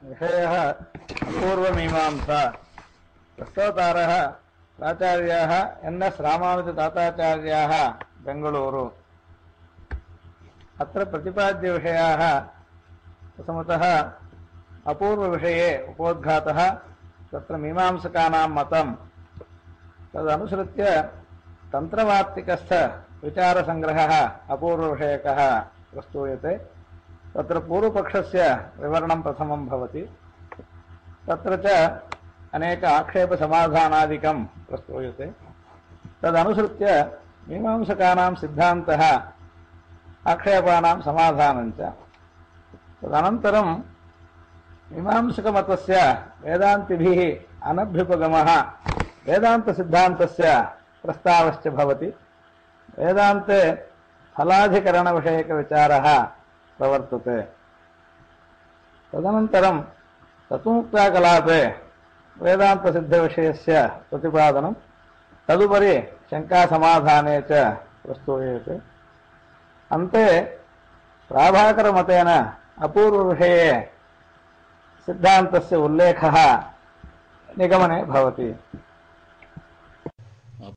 विषयः अपूर्वमीमांसा। प्रस्तोतारः प्राचार्याः एन्.एस्. रामानुजताताचार्याः बेङ्गळूरु। अत्र प्रतिपाद्यविषयाः प्रथमतः अपूर्वविषये उपोद्घातः तत्र मीमांसकानां मतं तदनुसृत्य तन्त्रवार्तिकस्थ विचारसङ्ग्रहः अपूर्वविषयकः प्रस्तूयते। तत्र पूर्वपक्षस्य विवरणं प्रथमं भवति। तत्र च अनेक आक्षेपसमाधानादिकं प्रस्तूयते। तदनुसृत्य मीमांसकानां सिद्धान्तः आक्षेपानां समाधानं च। तदनन्तरं मीमांसकमतस्य वेदान्तिभिः अनभ्युपगमः वेदान्तसिद्धान्तस्य प्रस्तावश्च भवति। वेदान्ते फलाधिकरणविषयकविचारः प्रवर्तते। तदनन्तरं तत्त्वमुक्ताकलापे वेदान्तसिद्धविषयस्य प्रतिपादनं, तदुपरि शङ्कासमाधाने च प्रस्तूयते। अन्ते प्राभाकरमतेन अपूर्वविषये सिद्धान्तस्य उल्लेखः निगमने भवति।